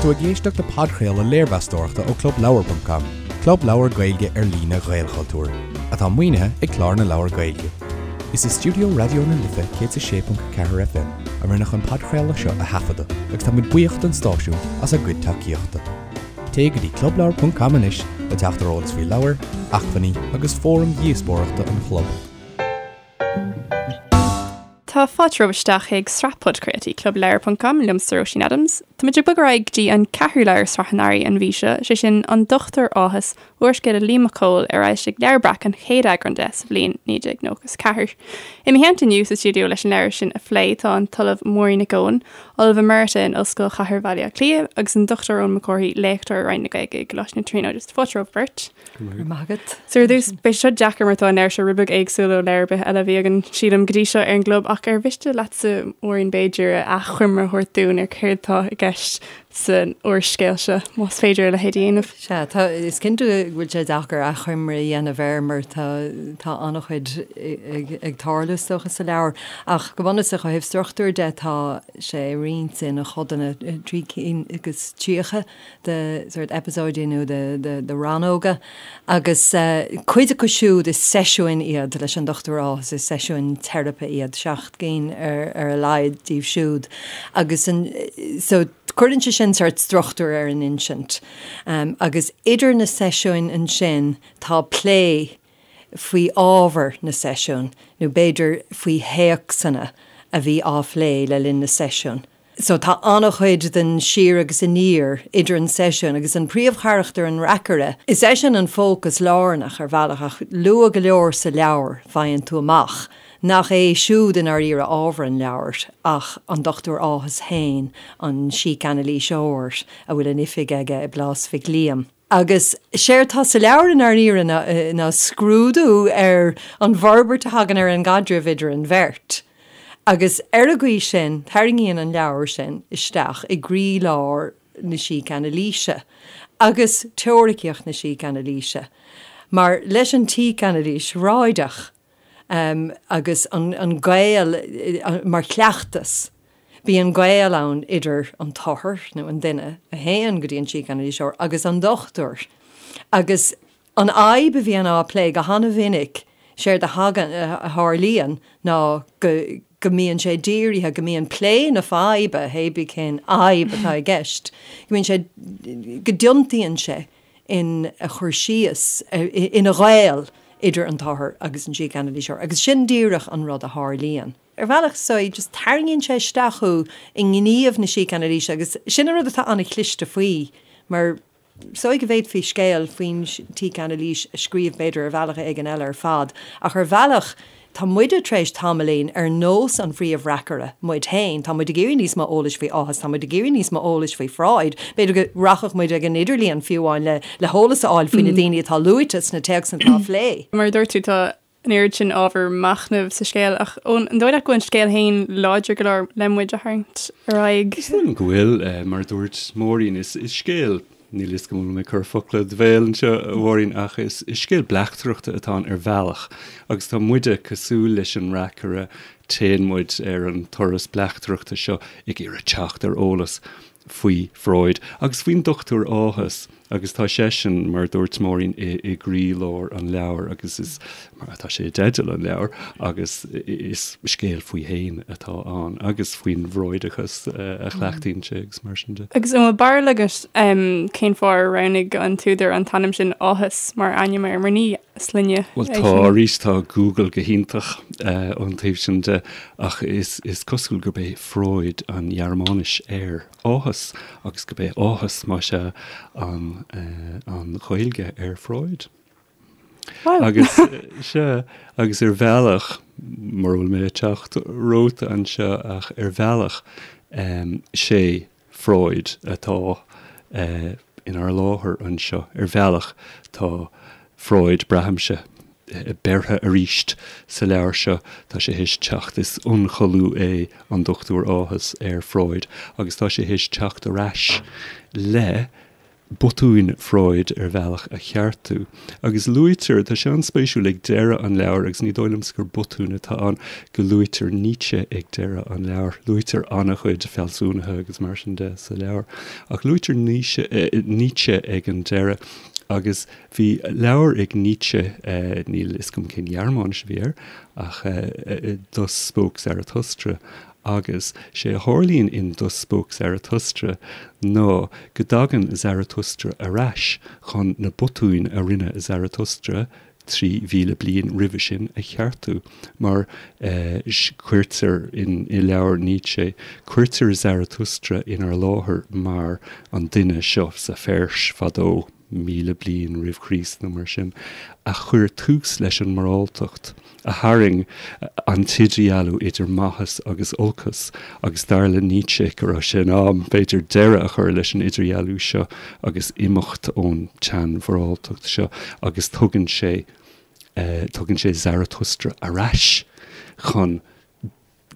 tú ag éisteacht le podchraoladh léirmheastóireachta ó ClubLeabhar.com, club leabhar Gaeilge ar líne Ghaelchultúir, atá maoinithe ag Clár na Leabhar Gaeilge. Is i stiúideo Raidió na Life 106.4 FM a rinneadh an podchraoladh seo a thaifeadadh agus tá muid buíoch don stáisiún as a gcuid tacaíochta. Téigh go dtí clubleabhar.com anois le teacht ar eolas faoi leabhair, acmhainní agus fóraim dhíospóireachta an chlub. Tá fáilte romhaibh isteach chuig sraith podchraoltaí Club Leabhar ponc com liomsa Róisín Adams. Táimid ag bogadh ar aghaidh go dtí an ceathrú leabhar sraith an Earraigh an mhí seo, sé sin An Dochtúir Áthas, úrscéal le Liam Mac Cóil ar fhoilsigh Leabhar Breac an chéad eagrán de sa bhliain 1994. I mo theannta inniu sa stiúideo leis an leabhar sin a phlé tá an tOllamh Máirín Nic Eoin, Ollamh Emerita in Ollscoil Chathair Bhaile Átha Cliath agus an Dr Eoin Mac Cárthaigh, léachtóir i Roinn na Gaeilge i gColáiste na Tríonóide. Fáilte romhaibh beirt. Go raibh maith agat. So ar dtús, beidh seo deacair mar tá an leabhar seo rud beag éagsúil ó leabhar ar bith eile a bhí againn, sílim, go dtí seo ar an gclub, ach ar mhiste leatsa, Máirín, b'fhéidir, achoimre a thabhairt dúinn ar céard atá i gceist san úrscéal seo, más féidir a leithéid a dhéanamh? Sea, tá, is cinnte go bhfuil sé deacair achoimre a dhéanamh air mar tá, tá an-chuid ag, ag tarlú is dócha sa leabhar. Ach go bunúsach ó thaobh struchtúir de tá sé roinnte ina chodanna, 3 cinn agus 30. de sórt eipeasóidí nó de rannóga agus cuid acu siúd is seisiúin iad leis an Dr Áthas, is seisiúin teiripe iad, 7 gcinn ar a laghad díobh siúd agus so cuireann sé sin sórt struchtúr ar an insint. Agus idir na seisiúin ansin tá plé faoi ábhar na seisiún nó b'fhéidir faoi théacsanna a bhí á phlé le linn na seisiún. So tá an-chuid den siar agus aniar idir an seisiún agus an príomhcharachtar, an reacaire. Is eisean an fócas lárnach ar bhealach ach luath go leor sa leabhar faigheann tú amach nach é siúd i ndáiríre ábhar an leabhair ach an Dr Áthas féin, an sícanailíseoir a bhfuil an oifig aige i bPlás Mhic Liam. Agus séard tá sa leabhar i ndáiríre ná scrúdú ar an bhforbairt a thagann ar an gcaidreamh idir an bheirt. Agus ar an gcaoi sin, tarraingíonn an leabhar sin isteach i gcroílár na sícanailíse agus teoiricíocht na sícanailíse. Mar leis an tsícanailís Fhreudach agus an gaol mar chleachtas, Bíonn gaol ann idir an t-othar, nó an duine a théann go dtí an sícanailíseoir, agus an dochtúir. Agus an fhadhb a bhíonn á plé go han-mhinic, séard a thagann, a tharlaíonn ná go go mbíonn sé dírithe, go mbíonn plé na faidhbe, hébí cén fhadhb atá i gceist, go mbíonn sé, go dtiontaíonn sé ina chur síos, ina ghaol idir an t-othar agus an sícanailíseoir. Agus sin díreach an rud a tharlaíonn. Ar bhealach, so just tarraingíonn sé isteach thú i ngníomh na sícanailíse agus sin an rud atá an-chliste faoi mar is dóigh go bhféadfaí scéal faoin tsícanailís a scríobh b'fhéidir ar bhealach éigin eile ar fad ach ar bhealach tá muide tar éis tamaillín ar nós an phríomhreacaire muid féin, tá muid ag iarraidh níos mó eolais faoi Áthas, tá muid ag iarraidh níos mó eolais faoi Freud, b'fhéidir go rachadh muid ag an idirlíon fiú amháin le le heolas a fháil faoi na daoine atá luaite sna téacsanna atá á phlé. Mar a dúirt tú tá an oiread sin ábhar machnaimh sa scéal, ach an dóigh leat go bhfuil an scéal féin láidir go leor le muid a tharraingt ar aghaidh? Is dóigh liom go bhfuil, mar a dúirt Máirín, is scéal, níl a fhios agam an bhfuil mé ag cur focla i do bhéal anseo, a Mháirín, ach is scéal bleachtaireachta atá ann ar bhealach agus tá muide cosúil leis an reacaire, téann muid ar an turas bleachtaireachta seo ag iarraidh teacht ar eolas faoi Freud agus faoin Dochtúir Áthas agus tá seisean, mar a dúirt Máirín, i gcroílár an leabhair agus is, mar atá sé i dteideal an leabhair, agus is scéal faoi fhéin atá ann agus faoin bhFreudachas a chleachtaíonn sé agus mar sin de. Agus an bhfuil barúil agat cén fáth ar roghnaigh an t-údar an t-ainm sin Áthas mar ainm air, mar ní sloinne é Bhuel tá, arís tá Google go hiontach ón taobh sin de ach is cosúil gurb é Freud an Ghearmáinis ar áthas agus gurb é áthas, más ea, an an Ghaeilge ar Freud. Agus, sea, agus ar bhealach, mura bhfuil mé ag teacht romhat anseo ach ar bhealach, sé Freud atá inár láthair anseo. Ar bhealach, tá Freud, braithimse, beirthe arís sa leabhar seo. Tá sé théis teacht, is ionchollú é an Dochtúir Áthas ar Freud agus tá sé théis teacht ar ais le. botúin Freud ar bhealach a cheartú. Agus luaitear, tá sé an-spéisiúil ag deireadh an leabhair, agus ní dóigh liomsa gur botún atá ann, go luaitear Nietzsche ag deireadh an leabhair. Luaitear an-chuid fealsúnaithe agus mar sin de sa leabhar, ach luaitear Nietzsche ag an deireadh. Agus bhí leabhar ag Nietzsche, níl a fhios agam cén Ghearmáinis a bhí air, ach Thus Spoke Zarathustra, Agus sé a tharlaíonn in Thus Spoke Zarathustra ná go dtagann Zarathustra ar ais chun na botúin a rinne Zarathustra 3,000 bliain roimhe sin a cheartú, mar cuirtear in i leabhar Nietzsche, cuirtear Zarathustra inár láthair mar an duine seo sa Pheirs fadó. 1,000 bliain roimh Chríost nó mar sin, a chuir tús leis an moráltacht, a tharraing an t-idirdhealú idir maitheas agus olcas, agus dar le Nietzsche go raibh sé in am, b'fhéidir, deireadh a chur leis an idirdhealú seo agus imeacht ón tseanmhoráltacht seo, agus tugann sé, tugann sé Zarathustra ar ais chun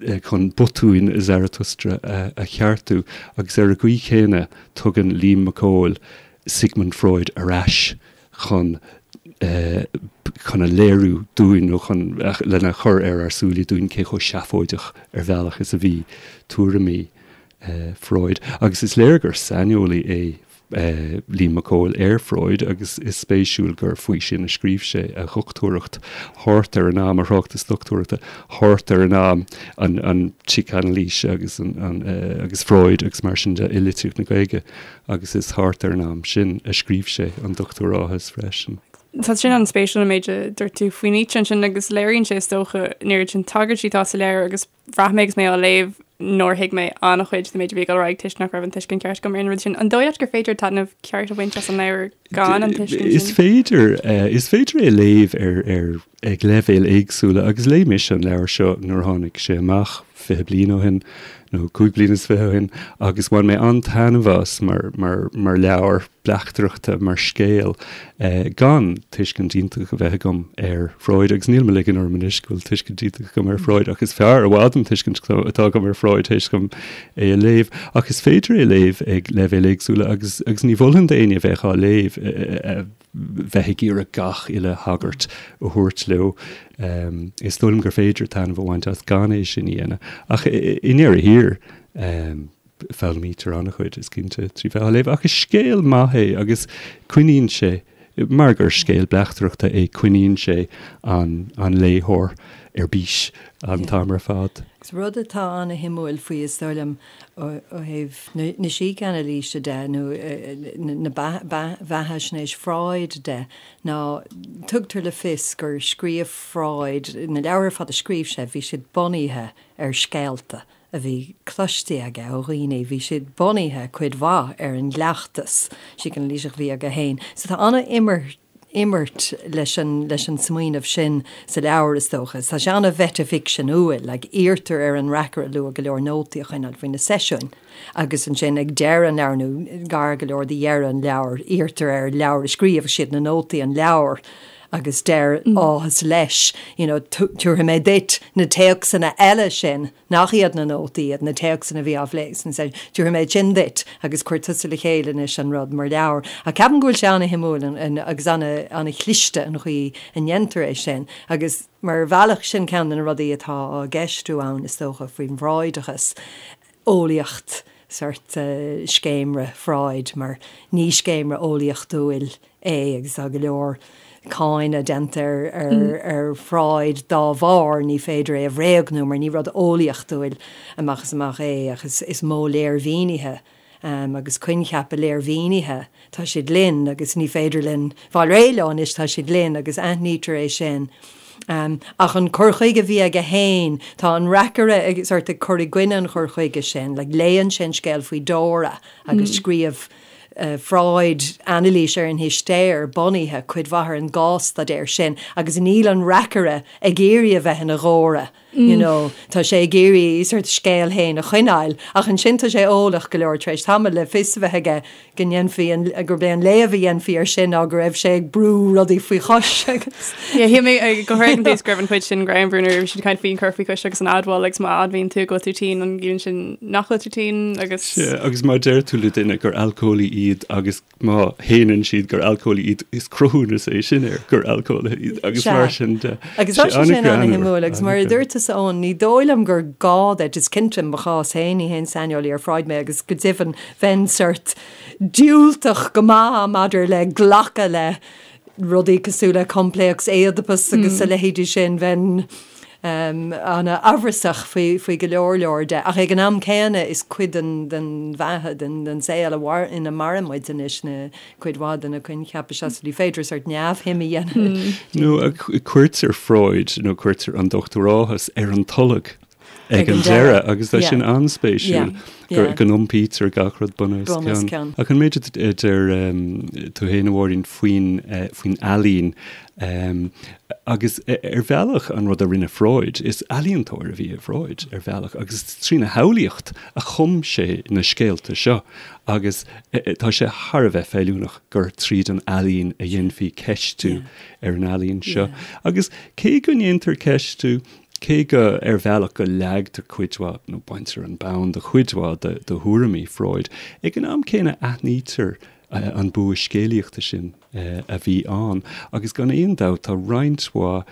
chun botúin Zarathustra a cheartú, agus ar an gcaoi chéanna tugann Liam Mac Cóil Sigmund Freud ar ais chun chun a léiriú dúinn nó chun lena chur ar ár súile dúinn cé chomh seafóideach ar bhealach is a bhí tuairimí Freud. Agus is léir gur saineolaí é Liam Mac Cóil ar Freud agus is spéisiúil gur faoi sin a scríobh sé a dhochtúireacht thart ar an am, a thráchtas dochtúireachta thart ar an am, an tsícanailís agus an agus Freud agus mar sin de i litríocht na Gaeilge agus is thart ar an am sin a scríobh sé an Dochtúir Áthas freisin. Tá sin an-spéisiúil an méid a dúirt tú faoi Nietzsche ansin agus léiríonn sé is dócha an oiread sin tagairtí atá sa leabhar agus Bhraith mé agus mé á léamh nár thuig mé an-chuid den méid a bhí ag dul ar aghaidh toisc nach raibh an tuiscint ceart agam ar an rud sin. An dóigh leat gur féidir taitneamh ceart a bhaint as an leabhar gan an tuiscint sin? Is féidir. Is féidir é a léamh ar, ar, ag leibhéil éagsúla agus léigh mise an leabhar seo nuair a tháinig sé amach 20 bliain ó shin nó 25 bliain ó shin agus bhain mé an-taitneamh as mar, mar, mar leabhar. bleachtaireachta mar scéal gan tuiscint iontach a bheith agam ar Freud, agus níl mé ag ligean orm anois go bhfuil tuiscint iontach agam ar Freud, ach is fearr i bhfad an tuiscint atá agam ar Freud théis dom é a léamh. Ach is féidir é a léamh ag leibhéil éagsúla agus agus ní mholfainn d'éinne a bheadh á léamh bheith ag iarraidh gach uile thagairt a thabhairt leo. Is dóigh liom gur féidir taitneamh a bhaint as gan é sin a dhéanamh. Ach i ndeireadh thiar, Foghlaimítear an-chuid, is cinnte, trí bheith á léamh, ach is scéal maith é agus coinníonn sé, mar gur scéal bleachtaireachta é, coinníonn sé an léitheoir ar bís an t-am ar fad. Agus rud atá an-shuimiúil faoi, is dóigh liom, ó thaobh na sícanailíse de nó na beathaisnéis Freud de, ná tugtar le fios gur scríobh Freud, na leabhair ar fad a scríobh sé, bhí siad bunaithe ar scéalta a bhí cloiste aige ó dhaoine, bhí siad bunaithe cuid mhaith ar an gcleachtas sícanailíseach a bhí aige féin. So tá an-imirt imirt leis an leis an smaoineamh sin sa leabhar, is dócha. Tá sé an-mheitificseanúil, like iarrtar ar an reacaire luath go leor nótaí a choinneáil faoi na seisiúin agus ansin ag deireadh an leabhair nó gar go leor do dheireadh an leabhair, iarrtar air leabhar a scríobh, is iad na nótaí an leabhar agus deir Áthas leis, you know, tabharfaidh mé duit na téacsanna eile sin nach iad na nótaí iad, na téacsanna a bhí á phlé sna seisiúin, tabharfaidh mé sin duit agus cuir tusa le chéile anois an rud mar leabhar. Ach ceapaim go bhfuil sé ana-shuimiúil agus ana-chliste an chaoi a ndéantar é sin agus mar bhealach sin ceann de na rudaí atá á gceistiú ann is dócha faoin bhFreudachas, eolaíocht, sórt scéimre Freud mar ní scéimre eolaíochtúil é agus tá go leor cáineadh déanta ar Freud dá bharr, ní féidir é a bhréagnú mar ní rud eolaíochtúil amach is amach é ach is modh léirmhínithe agus coincheapa léirmhínithe, tá siad linn agus ní féidir linn fáil réidh leo anois, tá siad linn agus aithnítear é sin. Ach an cur chuige a bhí aige féin, tá an reacaire ag sórt ag cur i gcoinne an chur chuige sin, like léann sé an scéal faoi Dora agus scríobh Freud anailís ar an histéir bunaithe cuid mhaith ar an gcás-staidéar sin agus níl an reacaire ag iarraidh a bheith ina Dhóra. You know, tá sé ag iarraidh sort scéal féin a choinneáil, ach ansin tá sé eolach go leor tar éis tamaill le fios a bheith aige go ndéanfaí an, gurb é an léamh a dhéanfaí air sin ná go raibh sé ag brú rudaí faoi chois agus. Yeah, shíl mé go háirithe an taobh go raibh an chuid sin greannmhar nuair a bhí siad ag caint faoin cur faoi chois agus an admháil agus má admhaíonn tú go bhfuil tú tinn an gciallaíonn sin nach bhfuil tú tinn agus. Sea, agus má deir tú le duine gur alcólaí iad agus Má shéanann siad gur alcólaí iad, is cruthúnas é sin air gur alcólaithe iad agus mar sin de. Agus tá sé sin an-shuimiúil agus mar a dúirt tusa Eoin, ní dóigh liom gur gá duit, is cinnte i mo chás féin, ní haon saineolaí ar Freud mé agus go deimhin bheinn sort diúltach go maith maidir le glacadh le rudaí cosúil le coimpléacs Éideapas agus a leithéidí sin, bheinn an-amhrasach faoi go leor leor de. Ach ag an am céanna is cuid den bheatha, den saol ina maireann muid anois na cuid mhaith de na coincheapa seo, so ní féidir sort neamhshuim a dhéanamh. Nó cuirtear Freud nó cuirtear an Dochtúir Áthas ar an tolg ag an deireadh agus tá sin an-spéisiúil go n-iompaítear gach rud bun os cionn. Ach an méid a deir tú féin, a Mháirín, faoin ealaín agus ar bhealach an rud a rinne Freud, is ealaíontóir a bhí i Freud ar bhealach agus is trína shamhlaíocht a chum sé na scéalta seo agus tá sé thar a bheith feiliúnach gur tríd an ealaín a dhéanfaí ceistiú ar an ealaín seo. Agus cé go ndéantar ceistiú, Cé go, ar bhealach, go leagtar cuid mhaith, nó baintear an bonn de chuid mhaith de thuairimí Freud, ag an am céanna aithnítear an bua scéalaíochta sin a bhí ann. Agus gan aon dabht tá roinnt mhaith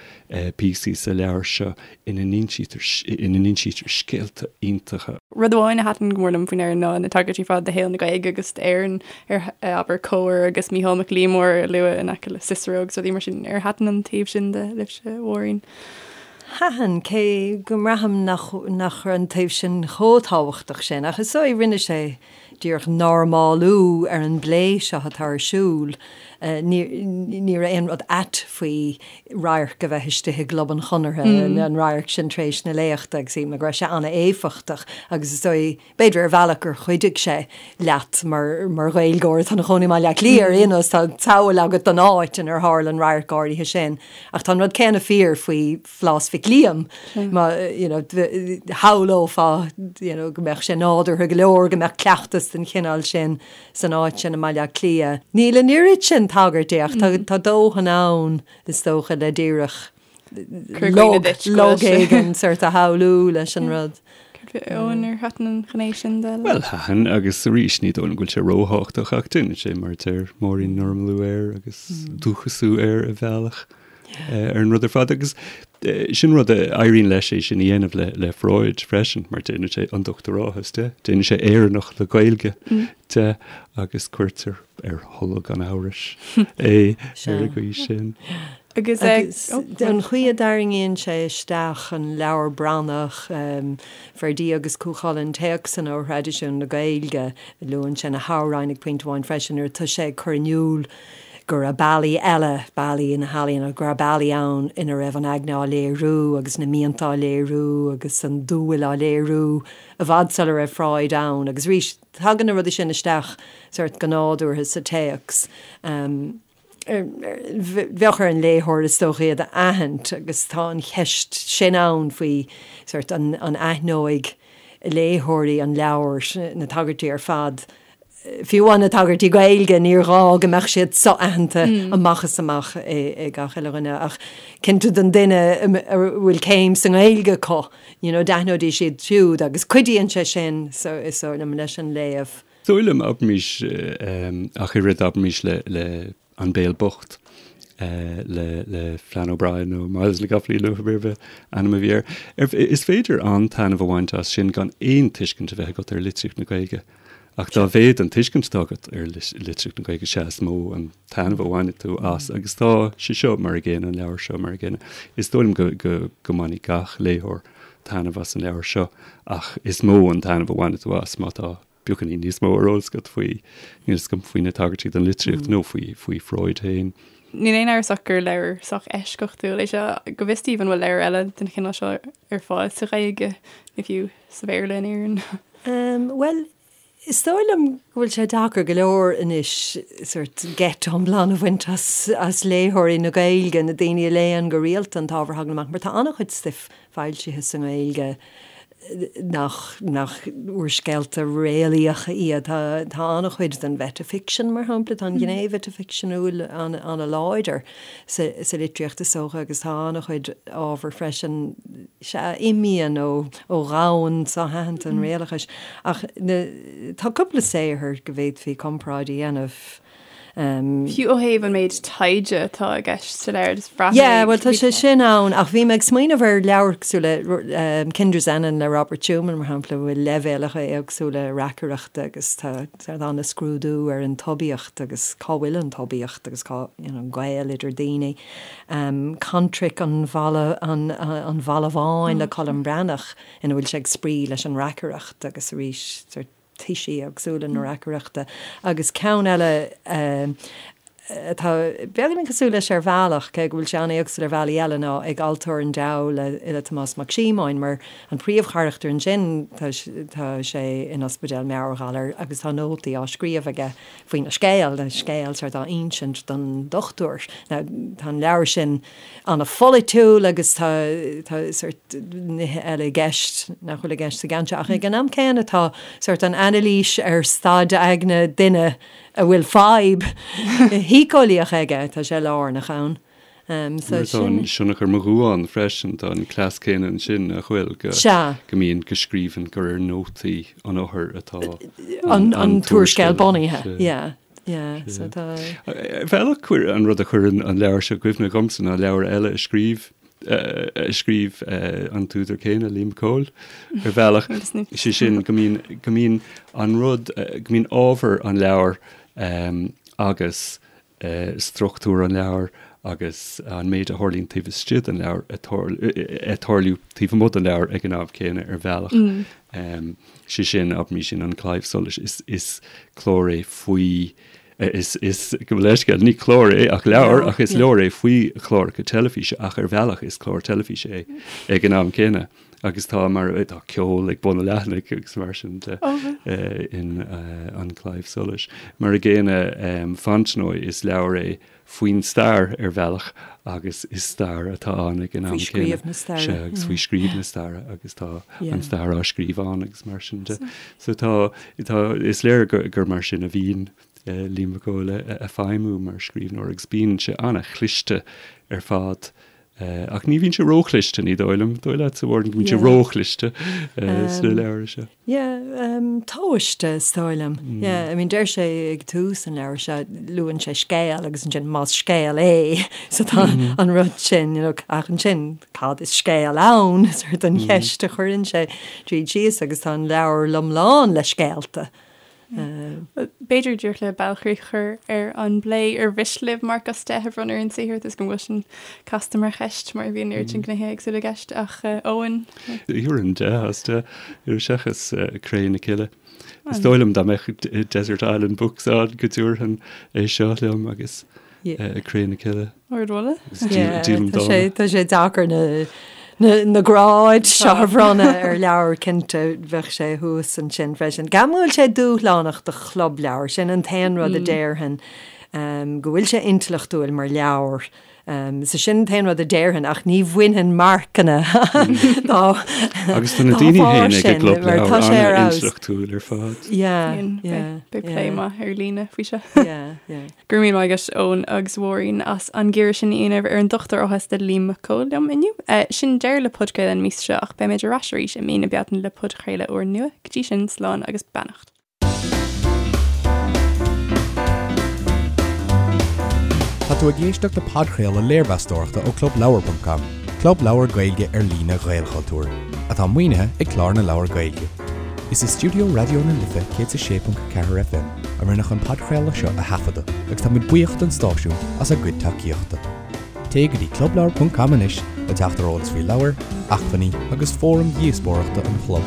píosaí sa leabhar seo ina n-insítear, ina n-insítear scéalta iontacha. Rud amháin a thaitin go mór liom faoin leabhar ná na tagairtí ar fad do shaol na Gaeilge agus d'Éirinn ar abair Comhar agus Mícheál Mac Liammóir a lua in aice le Cicero agus rudaí mar sin. Ar thaitin an taobh sin de libhse, a Mháirín? Thaitin, cé go mbraithim nach nach raibh an taobh sin chomh tábhachtach sin. Ach is dóigh, rinne sé díreach normálú ar an bplé seo atá ar siúl. Ní ní raibh aon rud ait faoi radharc a bheith istigh i gClub an Chonartha, an radharc sin tar éis na léachta agus shíl mé go raibh sé an-éifeachtach agus is dóigh, B'fhéidir ar bhealach gur chuidigh sé leat mar mar Ghaeilgeoir atá ina chónaí i mBaile Átha Cliath ar aon nós, tá samhail agat den áit inar tharla an radharc áirithe sin. Ach tá an rud céanna fíor faoi Phlás Mhic Liam, má you know shamhlófá you know go mbeadh sé nádúrtha go leor go mbeadh cleachtas den chineál sin san áit sin i mBaile Átha Cliath. Níl an oiread sin tagairtí ach tá tá dóthain ann is dócha le díreach log éigin sort a shamhlú leis an rud. Eoin ar thaitin an ghné sin de? Bhuel, thaitin, agus arís, ní dóigh liom go bhfuil sé róthábhachtach ach déanann sé, mar a deir Máirín, normalú air agus dúchasú air ar bhealach ar an rud ar fad. Agus sin rud a éiríonn leis é sin a dhéanamh le le Freud freisin, mar déanann sé an Dochtúir Áthas de, déanann sé Éireannach le Gaeilge de agus cuirtear ar tholg an amhrais é ar an gcaoi sin. Agus an chaoi a dtarraingíonn sé isteach an Leabhar Branach, Ferdia agus Cú Chulainn, téacsanna ó thraidisiún na Gaeilge, luann sé na hamhráin ag pointe amháin freisin nuair atá sé ag cur in iúl go raibh bealaí eile, bealaí na healaíona, go raibh bealaí ann ina raibh an aigne á léiriú agus na mianta á léiriú agus an dúil á léiriú i bhfad sula raibh Freud ann. Agus arís, tagann na rudaí sin isteach sort go nádúrtha sa téacs. Bheadh ar an léitheoir is dócha iad a aithint agus tá an cheist sin ann faoi sort an aithneoidh léitheoirí an leabhair na tagairtí ar fad, fiú amháin na tagairtí Gaeilge, níor ghá go mbeadh siad so-aitheanta amach is amach ag gach uile dhuine ach cinnte don duine a bhfuil céim sa nGaeilge acu, you know, d'aithneoidís iad siúd agus cuidíonn sé sin is dóigh liom leis an léamh. Is dóigh liom, abraimis, ach oiread, abraimis le, le An Béal Bocht, le, le Flann O'Brien nó Myles na gCopaleen nó cibé ar bith ainm a bhí air. Is féidir an-taitneamh a bhaint as sin gan aon tuiscint a bheith agat ar litríocht na Gaeilge. Ach dá mhéad an tuiscint atá agat ar litríocht na Gaeilge, sea is mó an taitneamh a bhainfidh tú as. Agus tá sé seo mar an gcéanna, an leabhar seo mar an gcéanna. Is dóigh liom go, go, go mbainfidh gach léitheoir taitneamh as an leabhar seo ach is mó an taitneamh a bhainfidh tú as má tá beagáinín níos mó ar eolas agat faoi, níl a fhios agam, faoi na tagairtí don litríocht nó faoi, faoi Freud féin. Níl aon amhras ach gur leabhar sách eisceachtúil é seo. Go bhfios daoibh an bhfuil leabhar eile den chineál seo ar fáil sa Ghaeilge, nó fiú sa Bhéarla in Éirinn? Bhuel, Is dóigh liom go bhfuil sé deacair go leor anois sort geit iomlán a bhaint as as léitheoirí na Gaeilge, na daoine a léann go rialta an t-ábhar a thagann amach, mar tá an-chuid stuif foilsithe sa nGaeilge nach nach úrscéalta réalaíocha iad. Tá tá an-chuid den mheitificsean, mar shampla, tá an ghné mheitificseanúil an-láidir sa sa litríocht is dócha agus tá an-chuid ábhar freisin, sea, a imíonn ó ó dhomhan so-aitheanta an réalachais. Ach na, tá cúpla saothar go bhféadfaí comparáid a dhéanamh. Fiú ó thaobh an méid taighde atá i gceist sa leabhar, just bhraith mé. Yeah, bhuel tá sé sin ann, ach bhí mé ag smaoineamh ar leabhair cosúil le Kinderszenen le Robert Schumann, mar shampla, a bhfuil leibhéalacha éagsúla reacaireachta agus tá sort an-scrúdú ar an tsuibiacht agus cá bhfuil an tsuibiacht agus cá, you know, an gaol idir daoine. Contraic an Bhalla, an an Bhalla Bháin le Colm Breathnach ina bhfuil sé ag spraoi leis an reacaireacht agus arís sort toisí éagsúla na reacaireachta. Agus ceann eile atá beagáinín cosúil leis ar bhealach, cé go bhfuil sé an-éagsúil ar bhealaí eile, ná Ag Altóir an Diabhail le le Tomás Mac Síomóin, mar an príomhcharachtar ansin tá tá sé in ospidéal meabhairghalair agus tá nótaí á scríobh aige faoina scéal, an scéal sort á insint don dochtúir. Now tá an leabhar sin an-pholaitiúil agus tá tá sort nithe eile i gceist nach bhfuil i gceist sa gceann seo ach ag an am céanna tá sort an anailís ar staid aigne duine a bhfuil fadhb shíceolaíoch aige, tá sé lárnach ann. So tá an Sionnach ar mo Dhuán freisin, tá an cleas céanna ansin, nach bhfuil, go go mbíonn, go scríobhann gur ar nótaí an othair atá an an t-úrscéal bunaithe. Yeah, yeah, so tá. Ar bhealach, chuir an rud a chuireann an leabhar seo i gcuimhne dhomsa ná leabhar eile a scríobh a scríobh an t-údar céanna, Liam Mac Cóil, ar bhealach, sé sin go mbíonn go mbíonn an rud, go mbíonn ábhar an leabhair agus struchtúr an leabhair agus an méid a tharlaíonn taobh istigh den leabhar ag tarlú taobh amuigh den leabhar ag an am céanna ar bhealach. Sé sin, abraimis in An Claidheamh Soluis, is is clár é faoi, is is gabh mo leithscéal, ní clár é ach leabhar ach is leabhar é faoi chláracha teilifíse ach ar bhealach is clár teilifíse é ag an am céanna. Agus tá mar tá ceol ag bun an leathanaigh agus mar sin de in An Claidheamh Soluis. Mar a gcéanna Fontenoy is leabhar é faoin stair ar bhealach agus is stair atá ann ag an am céanna. Faoi scríobh na staire. Sea, agus faoi scríobh na staire agus tá an stair á scríobh ann agus mar sin de. So tá, tá, is léir gur mar sin a bhíonn Liam Mac Cóil ag feidhmiú mar scríbhneoir agus bíonn sé an-chliste ar fad Ach ní bhíonn sé róchliste, ní dóigh liom. Dóigh leatsa, a Mháirín, go mbíonn sé róchliste sna leabhair seo? Yeah, tomhaiste, is dóigh liom. Yeah, I mean, deir sé ag tús an leabhair seo, luann sé scéal agus ansin más scéal é, so tá an rud sin, you know, ach ansin cad is scéal ann, sort an cheist a chuireann sé tríd síos agus tá an leabhar lom lán le scéalta. B'fhéidir díreach le bailchríoch a chur ar an bplé ar mhiste libh marc as 10 a bhronnadh ar an saothar toisc go bhfuil sin casta mar cheist mar bhíonn oiread sin gnéithe éagsúla i gceist ach Eoin? Thabharfainn 10 as 10 seachas Cré na Cille. Is dóigh liom dá mbeadh Desert Island Books ann go dtabharfainn é seo liom agus Cré na Cille. Ardmholadh. Tá sé deacair na gráid seo a bhronnadh ar leabhar, cinnte, bheadh sé thuas ansin freisin. Ceapaim go bhfuil sé dúshlánach do chlub leabhar, sin an t-aon rud a déarfainn, go bhfuil sé intleachtúil mar leabhar. So sin an t-aon rud a déarfainn ach ní bhainfinn marcanna dá Agus tá na daoine féin ag an gclub leabhar an-intleachtúil ar fad. Yeah, yeah. Beidh plé maith ar líne faoi seo. Yeah, yeah. Go raibh míle maith agat Eoin agus Mháirín as an gcíoradh sin a dhéanamh ar an Dochtúir Áthas le Liam Mac Cóil liom inniu. Sin deireadh le podchraoladh an mhí seo ach beimid ar ais arís i mí na Bealtaine le podchraoladh úrnua. Go dtí sin, slán agus beannacht. Tá tú ag éisteacht le podchraoladh léirmheastóireachta ó ClubLeabhar.com, club leabhar Gaeilge ar líne Ghaelchultúir, atá maoinithe ag Clár na Leabhar Gaeilge. Is i stiúideo Raidió na Life 106.4 FM a rinneadh an podchraoladh seo a thaifeadadh agus táimid buíoch don stáisiún as a gcuid tacaíochta. Téigh go dtí clubleabhar.com anois le teacht ar eolas faoi leabhair, acmhainní agus fóraim dhíospóireachta an chlub.